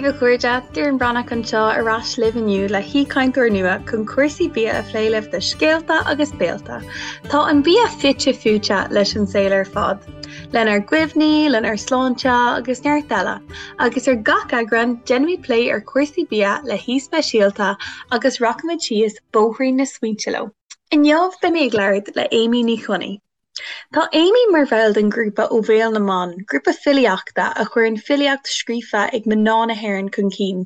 daoibh a chairde, Doireann Breathnach anseo ar ais libh inniu le haoichainteoir nua chun cúrsaí bia a phlé libh do Scéalta agus Béalta. Tá an bia fite fuaite leis an saol ar fad, lenár gcuimhní, lenár sláinte agus neart eile, agus ar gach eagrán déanfaimid plé ar chúrsaí bia le haoi speisialta agus rachaimid síos bóithrín na smaointe leo. Inniu beidh mé ag labhairt le Amy Ní Chonaill. Tá Amy mar bhall den ghrúpa Ó Bhéal na mBan, grúpa filíochta a chuireann filíocht scríofa ag mná na hÉireann chun cinn.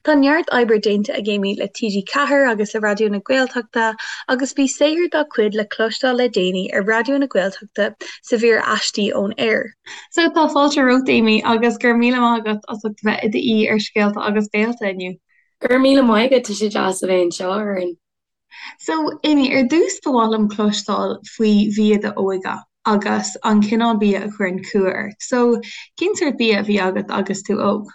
Tá neart oibre déanta ag Amy le TG4 agus le Raidió na Gaeltachta agus bhí saothar dá cuid le cloisteáil le déanaí ar Raidió na Gaeltachta sa mhír Aistí ón Aer. So tá fáilte romhat Amy agus go raibh míle maith agat as ucht a bheith i d'aoi ar Scéalta agus Béalta inniu. Go raibh míle maith agat, tá sé deas a bheith anseo, a Dhoireann. So, Amy, ar dtús ba mhaith liom cloisteáil faoi bhia d'óige agus an cineál bia a chuireann cumha ort. So, cén sórt bia a bhí agat agus tú óg?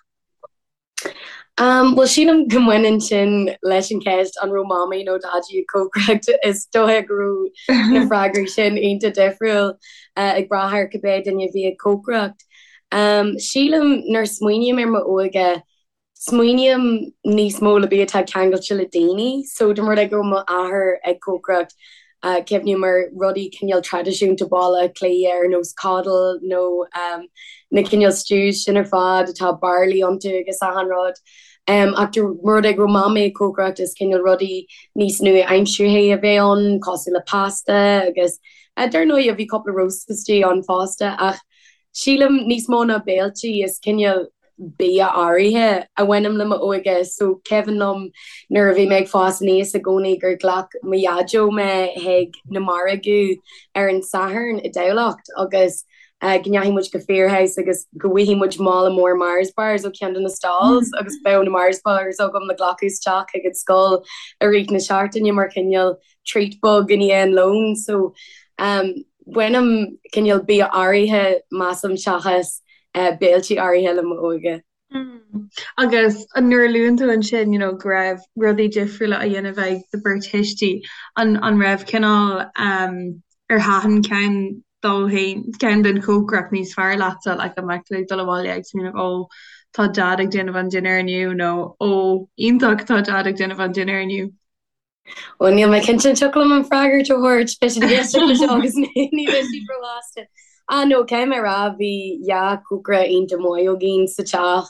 Um, bhuel sílim go mbaineann sin leis an cheist an raibh mamaí nó daidí ag cócaireacht. Is dóiche go raibh na freagraí sin iontach difriúil uh, ag brath ar cibé duine a bhí ag cócaireacht. Um, sílim nuair a smaoiním ar m'óige Smaoiním níos mó le bia atá ceangailte le daoine. So dá mba rud é go raibh m'athair ag cócaireacht, cuimhním ar rudaí cineál traidisiúnta Baile Átha Cliath ar nós coddle nó na cineál stews sin ar fad atá barley iontu agus achan rud. Ach dá mba rud é go raibh mamaí ag cócaireacht is cineál rudaí níos nua-aimseartha a bheadh ann cosúil le pasta agus dar ndóigh bhí cúpla roast istigh ann fosta ach sílim níos mó ná béiltí is cineál bia áirithe a bhaineann le m'óige so cuimhin liom nuair a bhí mé ag fás aníos i gcónaí gur ghlac mo dhaideo mé chuig na margaí ar an Satharn i dTamhlacht agus go ndeachaigh muid go Firhouse agus go bhfaigheadh muid mála mór Mars bars ó cheann de na stalls agus bheadh na Mars bars agam le glacadh isteach chuig an scoil i rith na seachtaine mar chineál treat beag i ndiaidh an lóin so baineann cineál bia áirithe measaim seachas béiltí áirithe le m'óige. Agus nuair a luann tú ansin you know go raibh rudaí difriúla á dhéanamh ag do bheirt thuistí, an an raibh cineál ar thaitin ceann dó féin, ceann den chócaireacht níos fearr leatsa, like an mbeadh tú ag dul abhaile ag smaoineamh ó tá Dad ag déanamh an dinnéar inniu nó ó iontach tá Dad ag déanamh an dinnéar inniu? Bhuel, níl mé cinnte an dtiocfadh liom an freagairt a thabhairt. Beidh siad ag éisteacht leis seo agus ní bheidh siad róshásta. Ah no, caithfidh mé a rá, bhí dhá chócaire iontach maith againn sa teach.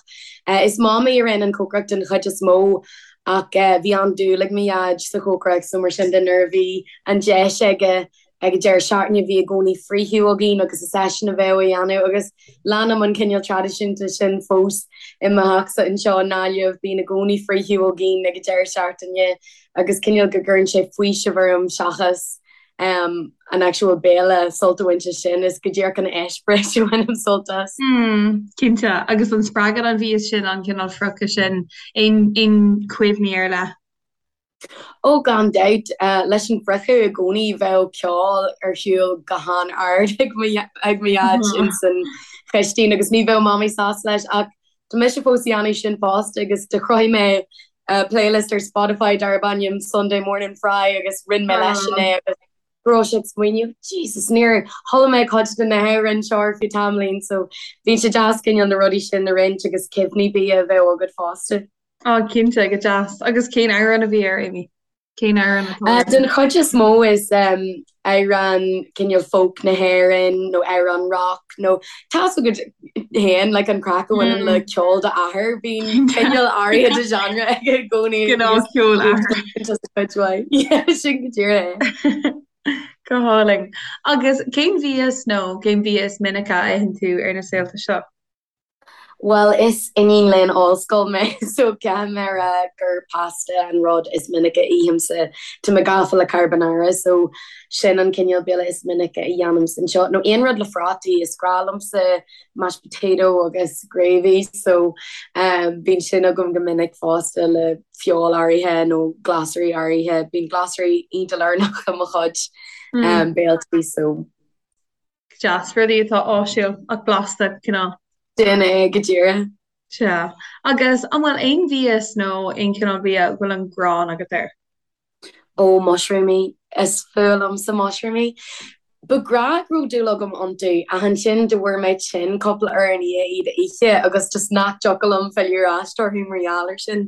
Is Mamaí a rinne an chócaireacht den chuid is mó ach bhí an-dúil ag mo Dhaid sa chócaireacht so mar sin de nuair a bhí an deis aige Ag an deireadh seachtaine bhí i gcónaí friochadh againn agus is eisean a bheadh á dhéanamh agus leanaim an cineál traidisiúnta sin fós i mo theachsa anseo i nGaillimh, bíonn i gcónaí friochadh againn ag an deireadh seachtaine agus cineál go gcuireann sé faoiseamh orm seachas an actual béile sult a bhaint as sin, is go díreach an eispéireas a bhainim sult as. Cinnte, agus an spreagann an mhias sin, an cineál friochadh sin, aon chuimhní ar leith? Ó, gan dabht. Leis an bhfriochadh i gcónaí bheadh ceol ar siúl go han-ard ag mo dhaid ins an chistín agus ní bheadh Mamaí sásta leis ach tá mise fós a dhéanamh sin fosta agus do chruthaigh mé playlist ar Spotify darb ainm Sunday Morning Fry agus roinn mé leisean é agus go raibh sé ag smaoineamh, Jesus, níor chuala mé cuid de na hamhráin seo ar feadh tamaillín so bíonn sé deas cineál na rudaí sin a roinnt agus cuimhní bia a bheith agat fosta. Á, cinnte, go deas. Agus cén amhrán a bhí air, Amy? Cén amhrán atá air? Den chuid is mó is amhrán cineál folk na hÉireann nó amhrán rock nó tá's agat féin like an craic a bhaineann le ceol d'athar, bíonn cineál áirithe de genre aige i gcónaí. Gnáth ceol athar. Just a cuid mhaith. Yeah, sin go díreach é. Go hálainn. Agus cén mhias nó cén bia is minice a itheann tú ar na saolta seo? Bhuel, is iníon léinn ollscoile mé so caithfidh mé a rá gur pasta an rud is minice a ithimse. Tá mé gafa le carbonara so sin an cineál béile is minice a dhéanaimse anseo. Nó aon rud le prátaí, is grá liomsa mashed potato agus gravy so bíonn sin agam go minic fosta le feoil áirithe nó glasraí áirithe. Bíonn glasraí iontach lárnach i mo chuid béiltí so. Deas, rudaí atá áisiúil ach blasta, cineál. Sin é go díreach. Sea. Agus an bhfuil aon mhias nó aon chineál bia a bhfuil an ghráin agat air? Ó, mushroomaí. Is fuath liomsa mushroomaí. Ba ghnách go raibh dúil agam iontu ach ansin do fuair mé tinn cúpla uair i ndiaidh iad a ithe agus just nach dtiocfadh liom filleadh ar ais orthu mar gheall air sin.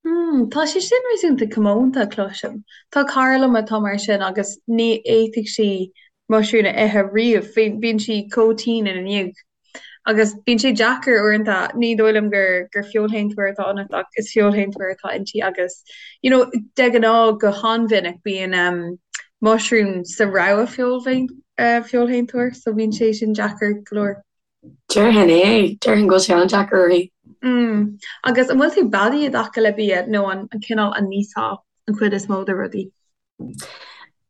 Hmm, tá sé sin réasúnta comónta, cloisim. Tá cara liom atá mar sin agus ní fhéadfadh sí muisriún a ithe riamh, bíonn sí chomh tinn ina ndiaidh. Agus bíonn sé deacair uaireanta, ní dóigh liom gur gur feoilshéantóir atá ionat ach is feoilshéantóir atá inti agus you know de ghnáth go han-mhinic bíonn um muisriún sa rogha feoilshéantóir so bíonn sé sin deacair go leor. Déarfainn é, déarfainn go bhfuil sé an-deacair uirthi. Mm. Agus an bhfuil tú beadaí i dtaca le bia nó an cineál a n-íosfá an chuid is mó de rudaí?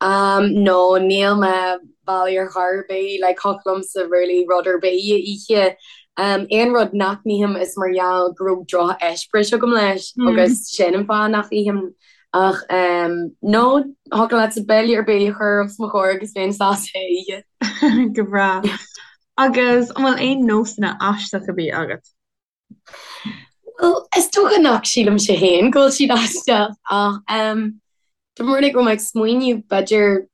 Um, no, níl mé beadaí ar chor ar bith, like thiocfadh liomsa really rud ar bith a ithe. Um, aon rud nach n-ithim is mar gheall go raibh droch-eispéireas agam leis agus sin an fáth nach ithim. Ach um, no, thiocfadh leatsa béile ar bith a chur os mo chomhair agus bheinn sásta é a ithe. Go breá. Agus an bhfuil aon nósanna aisteacha bídh agat? Bhuel, is dócha nach sílimse féin go bhfuil siad aisteach ach dá mba rud é go raibh mé ag smaoineamh, b'fhéidir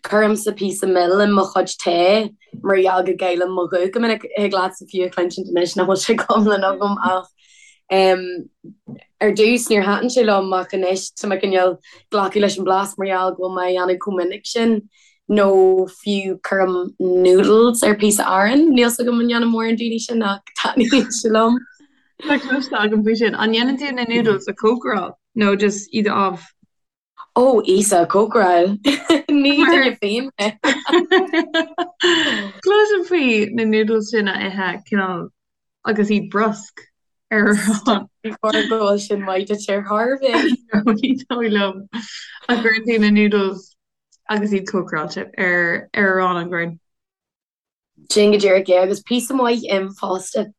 cuirimse píosa mil i mo chuid tae mar gheall go gcaillim mo ghuth go minic. Thig leatsa fiú a chluinsint anois nach bhfuil sé go hiomlán agam ach ar dtús níor thaitin sé liom ach anois tá mé cineál glacadh leis an blas mar gheall go bhfuil mé á dhéanamh chomh minic sin. Nó fiú cuirim noodles ar píosa aráin. Níl 's agam an ndéanann mórán daoine sin ach taitníonn sé liom. Tá cloiste agam faoi sin. An ndéanann tú na noodles a chócaráil nó just iad a fháil? Ó, Íosa, cócaráil. Ní duine fiáin mé. Cloisim faoi na noodles sin a ithe cineál agus iad brusc ar arán. Ní chóir go bhfuil sin maith duit ar chor ar bith. Ní dóigh liom. Ach cuireann tú na noodles agus iad cócaráilte ar arán an gcuireann. Sin go díreach é, agus píosa maith im fosta.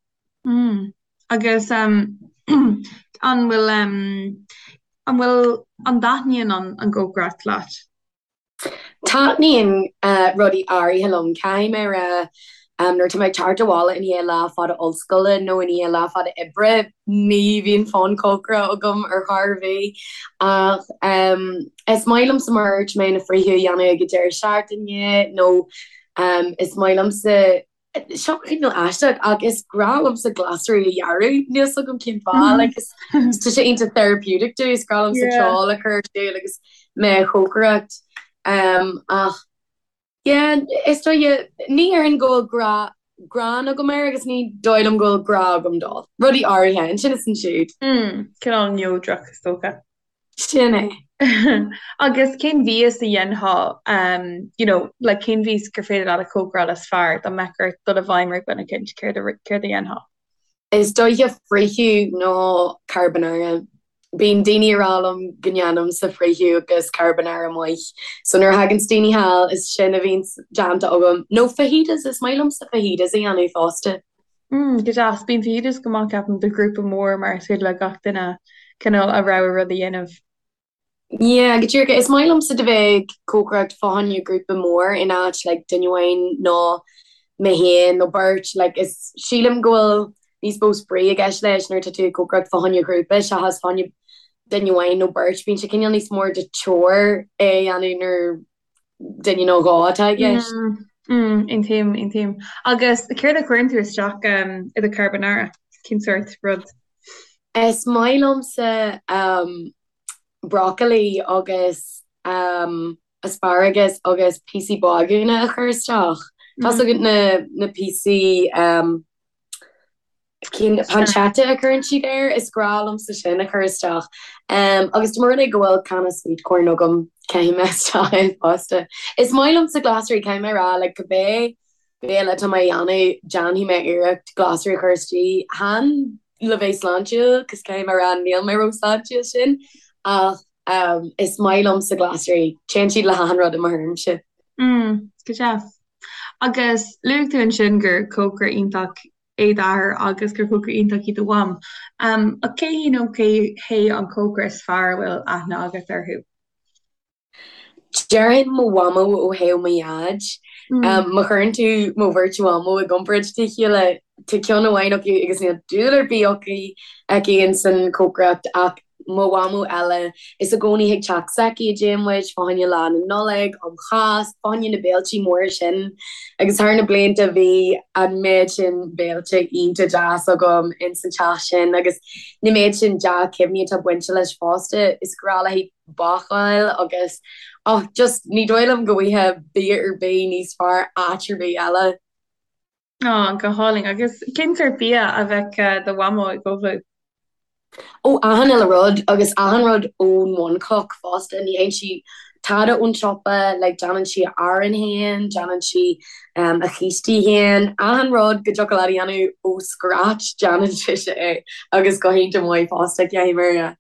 Mm. Agus um, an bhfuil um, an bhfuil an dtaitníonn an, an gcócaireacht leat? Taitníonn uh, rudaí áirithe liom. Caithfidh mé a rá Nuair atá mé ag teacht abhaile i ndiaidh lá fada ollscoile nó i ndiaidh lá fada oibre, ní bhíonn fonn cócaire agam ar chor ar bith. Ach is maith liomsa mar a dúirt mé na friochadh a dhéanamh ag an deireadh seachtaine nó is maith liomsa, seo cineál aisteach ach is grá liomsa glasraí a ghearradh, níl 's agam cén fáth, like is tá sé iontach therapeutic domh, is grá liomsa ceol a chur ar siúl agus mé a chócaireacht. Ach Yeah, is dóigh, ní déarfainn go bhfuil grá, gráin agam air agus ní dóigh liom go bhfuil grá agam dó. Rudaí áirithe, ansin is ansiúd. Mm, cineál neodrach is dócha. Sin é. Agus cén mhias a dhéanfá, um, you know, like cén mhias gur féidir leat a chócaráil is fearr dá mbeadh ort dul i bhfeidhm ar dhuine eicínt, céard a, céard a dhéanfá? Is dóiche friochadh nó carbonara. Bíonn daoine ag rá liom go ndéanaimse friochadh agus carbonara maith. So nuair a thaganns daoine thall is sin a bhíonns déanta agam. Nó fajitas, is maith liomsa fajitas a dhéanamh fosta. Mm, go deas. Bíonn fajitas go maith ceapaim do ghrúpa mór mar is féidir le gach duine cineál a rogha rud a dhéanamh. Yeah, go díreach. Is maith liomsa do bheith ag cócaireacht fá choinne grúpa mór in áit like duine amháin nó mé féin nó beirt. Like is sílim go bhfuil níos mó spraoi i gceist leis nuair atá tú ag cócaireacht fá choinne grúpa seachas fá choinne duine amháin nó beirt. Bíonn sé cineál níos mór de chore é a dhéanamh nuair duine nó dhó atá i gceist. Mm, aontaím, aontaím. Agus céard a chuireann tú isteach um, i do carbonara? Cén sórt rud? Is maith liomsa um, broccoli agus asparagus agus píosaí bagúna a chur isteach. Tá's agat na na píosaí cinn pancetta a chuireann siad air, is grá liomsa sin a chur isteach. Agus dá mba rud é go bhfuil canna sweet corn agam, caithfidh mé isteach é fosta. Is maith liomsa glasraí, caithfidh mé a rá, like cibé béile atá mé a dhéanamh, déanfaidh mé iarracht glasraí a chur istigh. Chan le bheith sláintiúil, cos caithfidh mé a rá níl mé ró-sláintiúil sin, ach is maith liomsa glasraí. Téann siad le hachan rud i mo thuairimse. Mm, go deas. Agus luaigh tú ansin gur cócaire iontach é d'athair agus gur cócaire iontach í do mham. Ach cé hí nó cé hé an cócaire is fearr a bhfuil aithne agat orthu? Déarfainn mo mhamó ó thaobh mo dhaid. Má chuireann tú mo bheirt mhamó i gcomparáid le chéile, tá ceann amháin acu agus níl dúil ar bith aici aici ins an chócaireacht ach Mo mhamó eile, is i gcónaí chuig teach s'aici a dtéann muid, fá choinne Lá na Nollag, um Cháisc, fá choinne na béiltí móra sin. Agus thar na blianta bhí an méid sin béilte iontach deas agam ins an teach sin agus na méid sin dea-chuimhní atá bainte leis fosta. Is grá léi bácáil agus, oh, just ní dóigh liom go bhfaighfeá bia ar bith níos fearr áit ar bith eile. Á, go hálainn. Agus cén sórt bia a bheadh do mhamó ag ullmhú? Ó, achan uile rud, agus achan rud ón bhunchloch fosta. Ní fhaigheann sí tada ón siopa, like déanann sí a arán féin, déanann sí a chístí féin, achan rud go dtiocfadh leat a dhéanamh ó scratch, déanann sise é, agus go hiontach maith fosta, caithfidh mé a rá.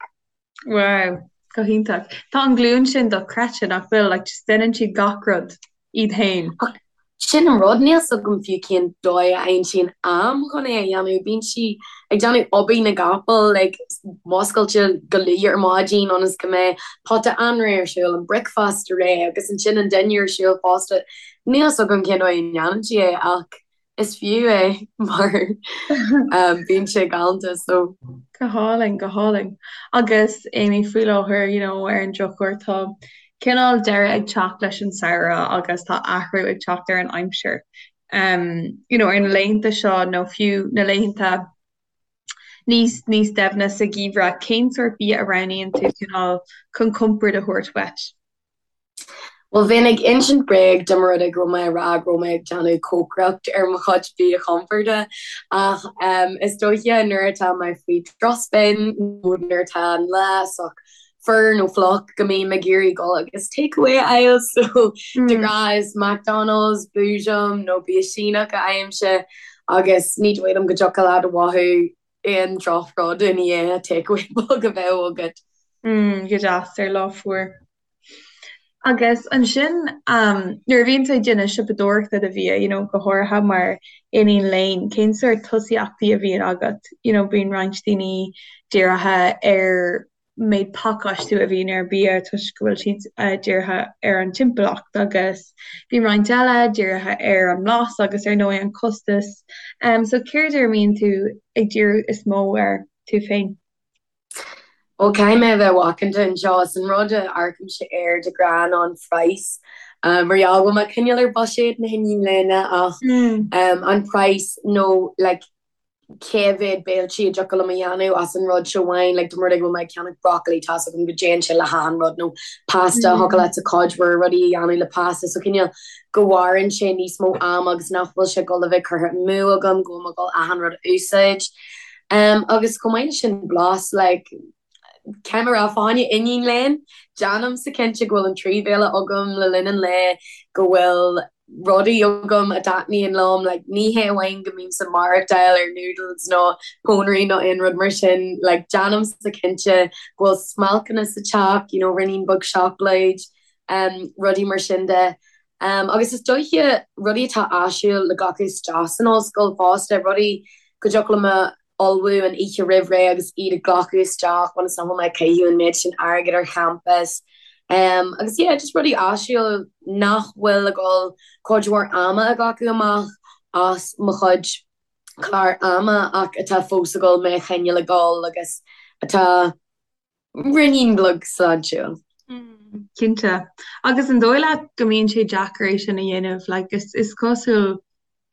Wow, go hiontach. Tá an glúin sin dochreidte, nach bhfuil? Like just déanann siad gach rud iad féin. Ach sin an rud, níl 's agam fiú cén dóigh a fhaigheann sí an am chun é a dhéanamh. Bíonn sí ag déanamh obair na gcapall, like muscailte go luath ar maidin ionas go mbeidh pota anraith ar siúl, an bricfeasta réidh agus ansin an dinnéar ar siúl fosta. Níl 's agam cén dóigh a ndéanann sí é ach Is fiú é mar bíonn sé galánta so. Go hálainn, go hálainn. Agus Amy, faoi láthair, you know, ar an drochuair tá cineál deireadh ag teacht leis an samhradh agus tá athrú ag teacht ar an aimsir. Um, you know, ar na laethanta seo nó fiú na laethanta níos níos doimhne sa gheimhreadh, cén sórt bia a roghnaíonn tú cineál chun compord a thabhairt dhuit? Bhuel, bheinn ag insint bréag dá mba rud é go raibh mé ag rá go raibh mé ag déanamh cócaireacht ar mo chuid bia chomforda ach is dóiche nuair atá mé faoi drochspin nó nuair atá an lá sách fuar nó fliuch go mbím ag iarraidh dul agus takeaway a fháil so de ghnáth is McDonald's, Boojum nó bia Síneach a fhaighimse agus ní dóigh liom go dtiocfadh leat a mhothú aon drochrud i ndiaidh takeaway beag a bheith agat. Go deas ar lá fuar. Agus ansin, nuair a bhíonn tú ag déanamh siopadóireachta do bhia, you know, go háirithe mar iníon léinn, cén sórt tosaíochtaí a bhíonn agat? You know, bíonn roinnt daoine dírithe ar méid pacáistiú a bhíonn ar bia toisc go bhfuil siad dírithe ar an timpeallacht agus bíonn roinnt eile dírithe ar an mblas agus ar ndóigh an costas. So céard ar a mbíonn tú ag díriú is mó air tú féin? Ó, caithfidh mé a bheith macánta anseo. Is an rud a amharcaimse air de ghnáth ná an praghas. Mar gheall go bhfuil mé cineál ar buiséad na hiníne léinn ach an praghas nó like cé mhéad béiltí a dtiocfadh liom a dhéanamh as an rud seo amháin. Like dá mba rud é go bhfuil mé ag ceannach broccoli tá's agam go dtéann sé le hachan rud nó pasta thiocfadh leatsa cuid mhór rudaí a dhéanamh le pasta so cineál go mhaireann sé níos mó ama agus nach bhfuil sé ag dul a bheith curtha amú agam go bhfuil mé ag dul achan rud a úsáid. Agus chomh maith leis sin blas, like, caithfidh mé a rá, fá choinne iníon léinn, déanaimse cinnte go bhfuil an trí bhéile agam le linn an lae, go bhfuil rudaí agam a dtaitníonn liom, like, ní hé amháin go mbímse ag maireachtáil ar noodles nó pónairí nó aon rud mar sin, like, déanaimse cinnte go bhfuil smailceanna sa teach, you know, ruainnín beag seacláid, rudaí mar sin de. Agus is dóiche rudaí atá áisiúil le glacadh isteach san ollscoil fosta, rudaí go dtiocfadh liom a ullmhú an oíche roimh ré agus iad a ghlacadh isteach ionas nach bhfuil mé ag caitheamh an méid sin airgid ar champas. Agus yeah, just rudaí áisiúil nach bhfuil ag dul cuid mhór ama a ghlacadh amach as mo chuid clár ama ach atá fós ag dul mé a choinneáil ag dul agus atá ruainnín beag sláintiúil. Cinnte. Agus an dóigh leat go mbíonn sé deacair é sin a dhéanamh? Like, is, is cosúil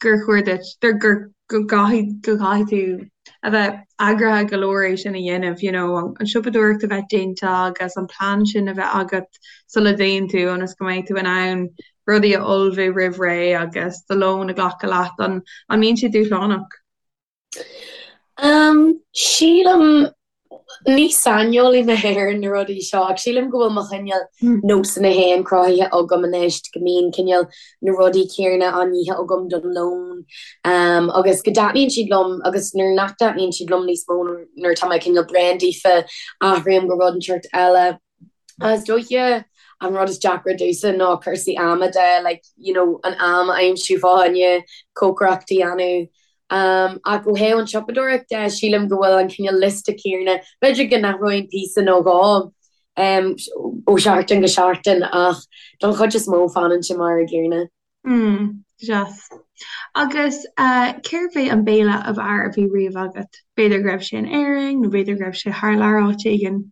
gur chóir duit, gur, gur, go gcaithfidh, go gcaithfidh tú a bheith eagraithe go leor é sin a dhéanamh, you know, an, an siopadóireacht a bheith déanta agus an plean sin a bheith agat sula dtéann tú ionas go mbeidh tú in ann rudaí a ullmhú roimh ré agus do lón a ghlacadh leat. An, an mbíonn sé dúshlánach? Sílim, ní saineolaí mé ar na rudaí seo, ach sílim go bhfuil mo chineál nósanna féin cruthaithe agam anois, go mbíonn cineál na rudaí céanna á n-ithe agam don lón agus go dtaitníonn siad liom agus nuair nach dtaitníonn siad liom níos mó, nuair atá mé cineál bréan daofa, athraím go rud inteacht eile. Is dóiche an rud is deacra domhsa ná cúrsaí ama de, like, you know, an am a aimsiú fá choinne cócaireacht a dhéanamh. Ach ó thaobh an tsiopadóireacht de, sílim go bhfuil an cineál liosta céanna, b'fhéidir go n-athróinn píosa nó dhó ó sheachtain go seachtain ach don chuid is mó fanann sé mar an gcéanna. Mm, deas. Agus cérbh é an béile ab fhearr a bhí riamh agat? B'fhéidir go raibh sé in Éirinn nó b'fhéidir go raibh sé thar lear áit éigin?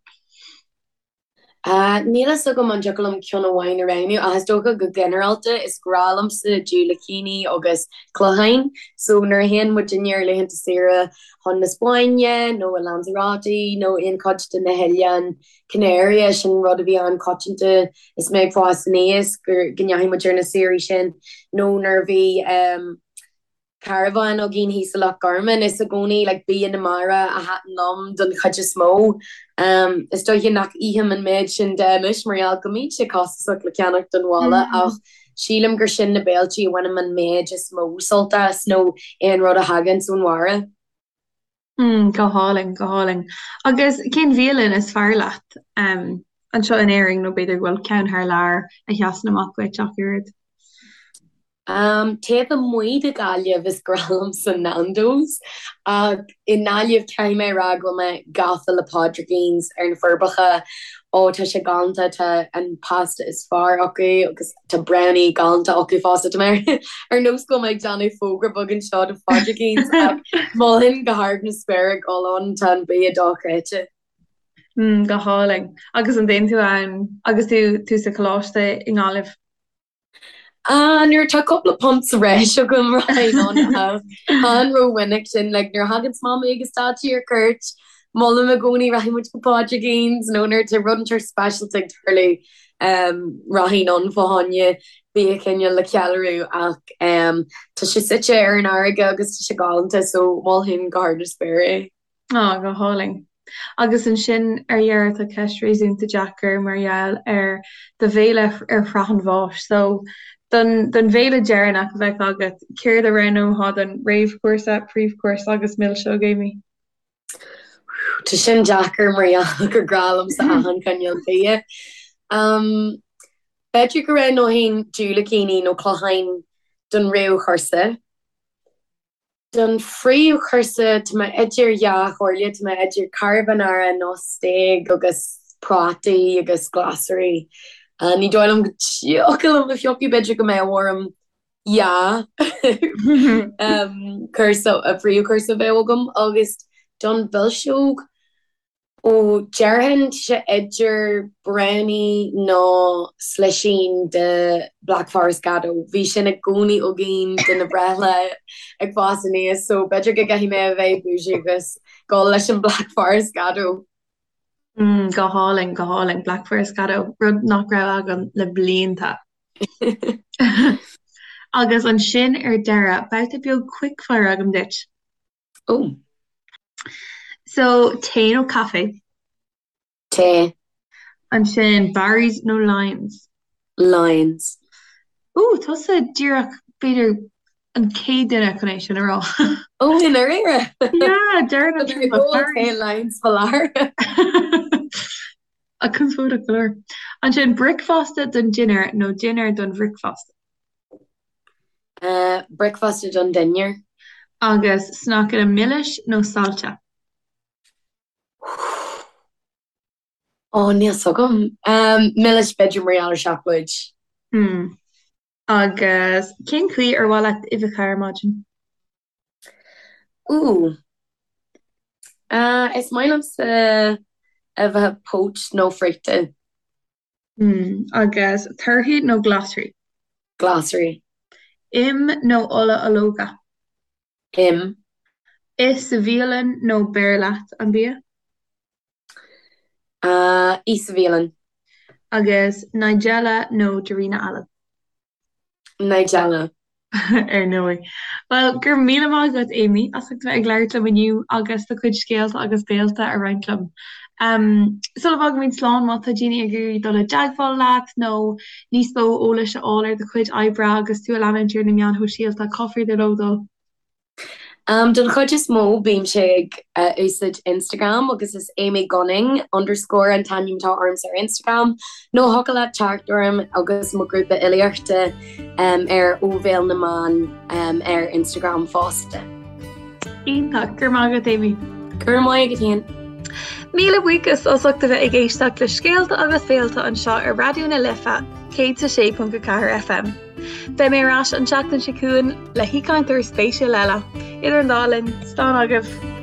Níl a fhios agam an dtiocfadh liom ceann amháin a roghnú ach is dócha go ginearálta is grá liomsa diúilicíní agus cloicheáin so nuair a théann muidinne ar laethanta saoire chun na Spáinne nó i Lanzarote nó aon chuid de na hOileáin Canaria sin rud a bhí an-choitianta is mé ag fás aníos go ndeachaigh muid ar na saoirí sin nó nuair a bhí carbhán againn thíos i Loch Garman. Is i gcónaí like bia na mara a thaitin liom don chuid is mó. Is dóiche nach ithim an méid sin de anois mar gheall go mbíonn sé costasach le ceannach don bhaile ach sílim gur sin na béiltí a bhainim an méid is mó sult as nó aon rud a thaganns ón mhara. Mm, go hálainn, go hálainn. Agus cén bhialann is fearr leat anseo in Éirinn nó b'fhéidir go bhfuil ceann thar lear a sheasann amach duit ach oiread? Um, taobh amuigh de Ghaillimh is grá liomsa Nando's ach i nGaillimh caithfidh mé a rá go bhfuil mé gafa le Pádraigín's ar na Forbacha. Ó tá sé galánta, tá an pasta is fearr acu agus Tá brownie galánta acu fosta. Tá mé ar nós go bhfuil mé ag déanamh fógra beag anseo do Phádraigín's ach mholfainn go hard na spéire dul ann, tá an bia dochreidte. Mm, go hálainn. Agus an dtéann tú ann agus tú tú sa choláiste i nGaillimh? Ah, nuair atá cúpla punt sa bhreis agam rachainn ann ach chan rómhinic sin, like nuair a thaganns Mamaí agus Daidí ar cuairt, molaim i gcónaí rachaidh muid go Pádraigín's nó nuair atá rud inteacht speisialta ag tarlú Rachainn ann fá choinne bia cineál le ceiliúradh ach tá sé suite ar an fharraige agus tá sé galánta so mholfainn go hard na spéire é. Á, go hálainn. Agus ansin ar dheireadh tá ceist réasúnta deacair mar gheall ar do bhéile ar shraith an bháis. So don don bhéile deireanach a bheadh agat, céard a roghnófá don réamhchúrsa, príomhchúrsa agus milseog, Amy? Tá sin deacair mar gheall gur grá liomsa achan chineál bia. B'fhéidir go roghnóinn diúilicíní nó cloicheáin don réamhchúrsa. Don phríomhchúrsa tá mé idir dhá chomhairle, tá mé idir carbonara nó stéig agus prátaí agus glasraí. Ní dóigh liom go dtiocfadh liom a phiocadh, b'fhéidir go mbeadh orm dhá chúrsa, príomhchúrsa a bheadh agam agus don mhilseog, ó déarfainn tá sé idir brownie nó slisín de Black Forest Gateau. Bhí sin i gcónaí againn do na breithlá ag fás aníos so b'fhéidir go gcaithfidh mé a bheith bougie agus dul leis an Black Forest Gateau. Mm, go hálainn, go hálainn, Black Forest Gateau, rud nach raibh agam le blianta. Agus ansin ar deireadh, babhta beag quickfire agam duit. Ó. So, tae nó caife? Tae. Ansin, Barry's nó Lyons? Lyons. Ó, tusa díreach, b'fhéidir, an chéad duine chun é sin a rá. Ó, i ndáiríre? Yeah, deireann an tromlach Barry's. Lyons fa láthair. A conspóideach go leor. Ansin, bricfeasta don dinnéar nó dinnéar don bhricfeasta? Bricfeasta don dinnéar. Agus sneaiceanna milis nó saillte? Ó, níl 's agam. Milis b'fhéidir mar gheall ar seacláid. Hmm. Agus cén chaoi ar mhaith leat uibheacha ar maidin? Ooh. Is maith liomsa uibheacha poached nó friochta. Hmm. Agus torthaí nó glasraí? Glasraí. Im nó ola ológa? Im. Ith sa bhialann nó beir leat an bia? Ith sa bhialann. Agus Nigella nó Darina Allen? Nigella. Ar ndóigh. Bhuel, go raibh míle maith agat, Amy, as ucht a bheith ag labhairt liom inniu agus do chuid scéalta agus béalta a roinnt liom. Sula bhfágaimid slán, má tá daoine ag iarraidh dul i dteagmháil leat nó níos mó eolais a fháil ar do chuid oibre agus tú a leanúint ar na meáin shóisialta, cá féidir leo dul? Don chuid is mó, bímse ag úsáid Instagram agus is Amy Gunning underscore an t-ainm atá ormsa ar Instagram nó thiocfadh leat teacht orm agus mo ghrúpa fhilíochta ar Ó Bhéal na mBan ar Instagram fosta. Iontach, go raibh maith agat Amy. Go raibh maith agat féin. Míle buíochas as ucht a bheith ag éisteacht le Scéalta agus Béalta anseo ar Raidió na Life 106.4 FM. Beidh mé ar ais an tseachtain seo chugainn le haoichainteoir spéisiúil eile. Idir an dá linn, slán agaibh!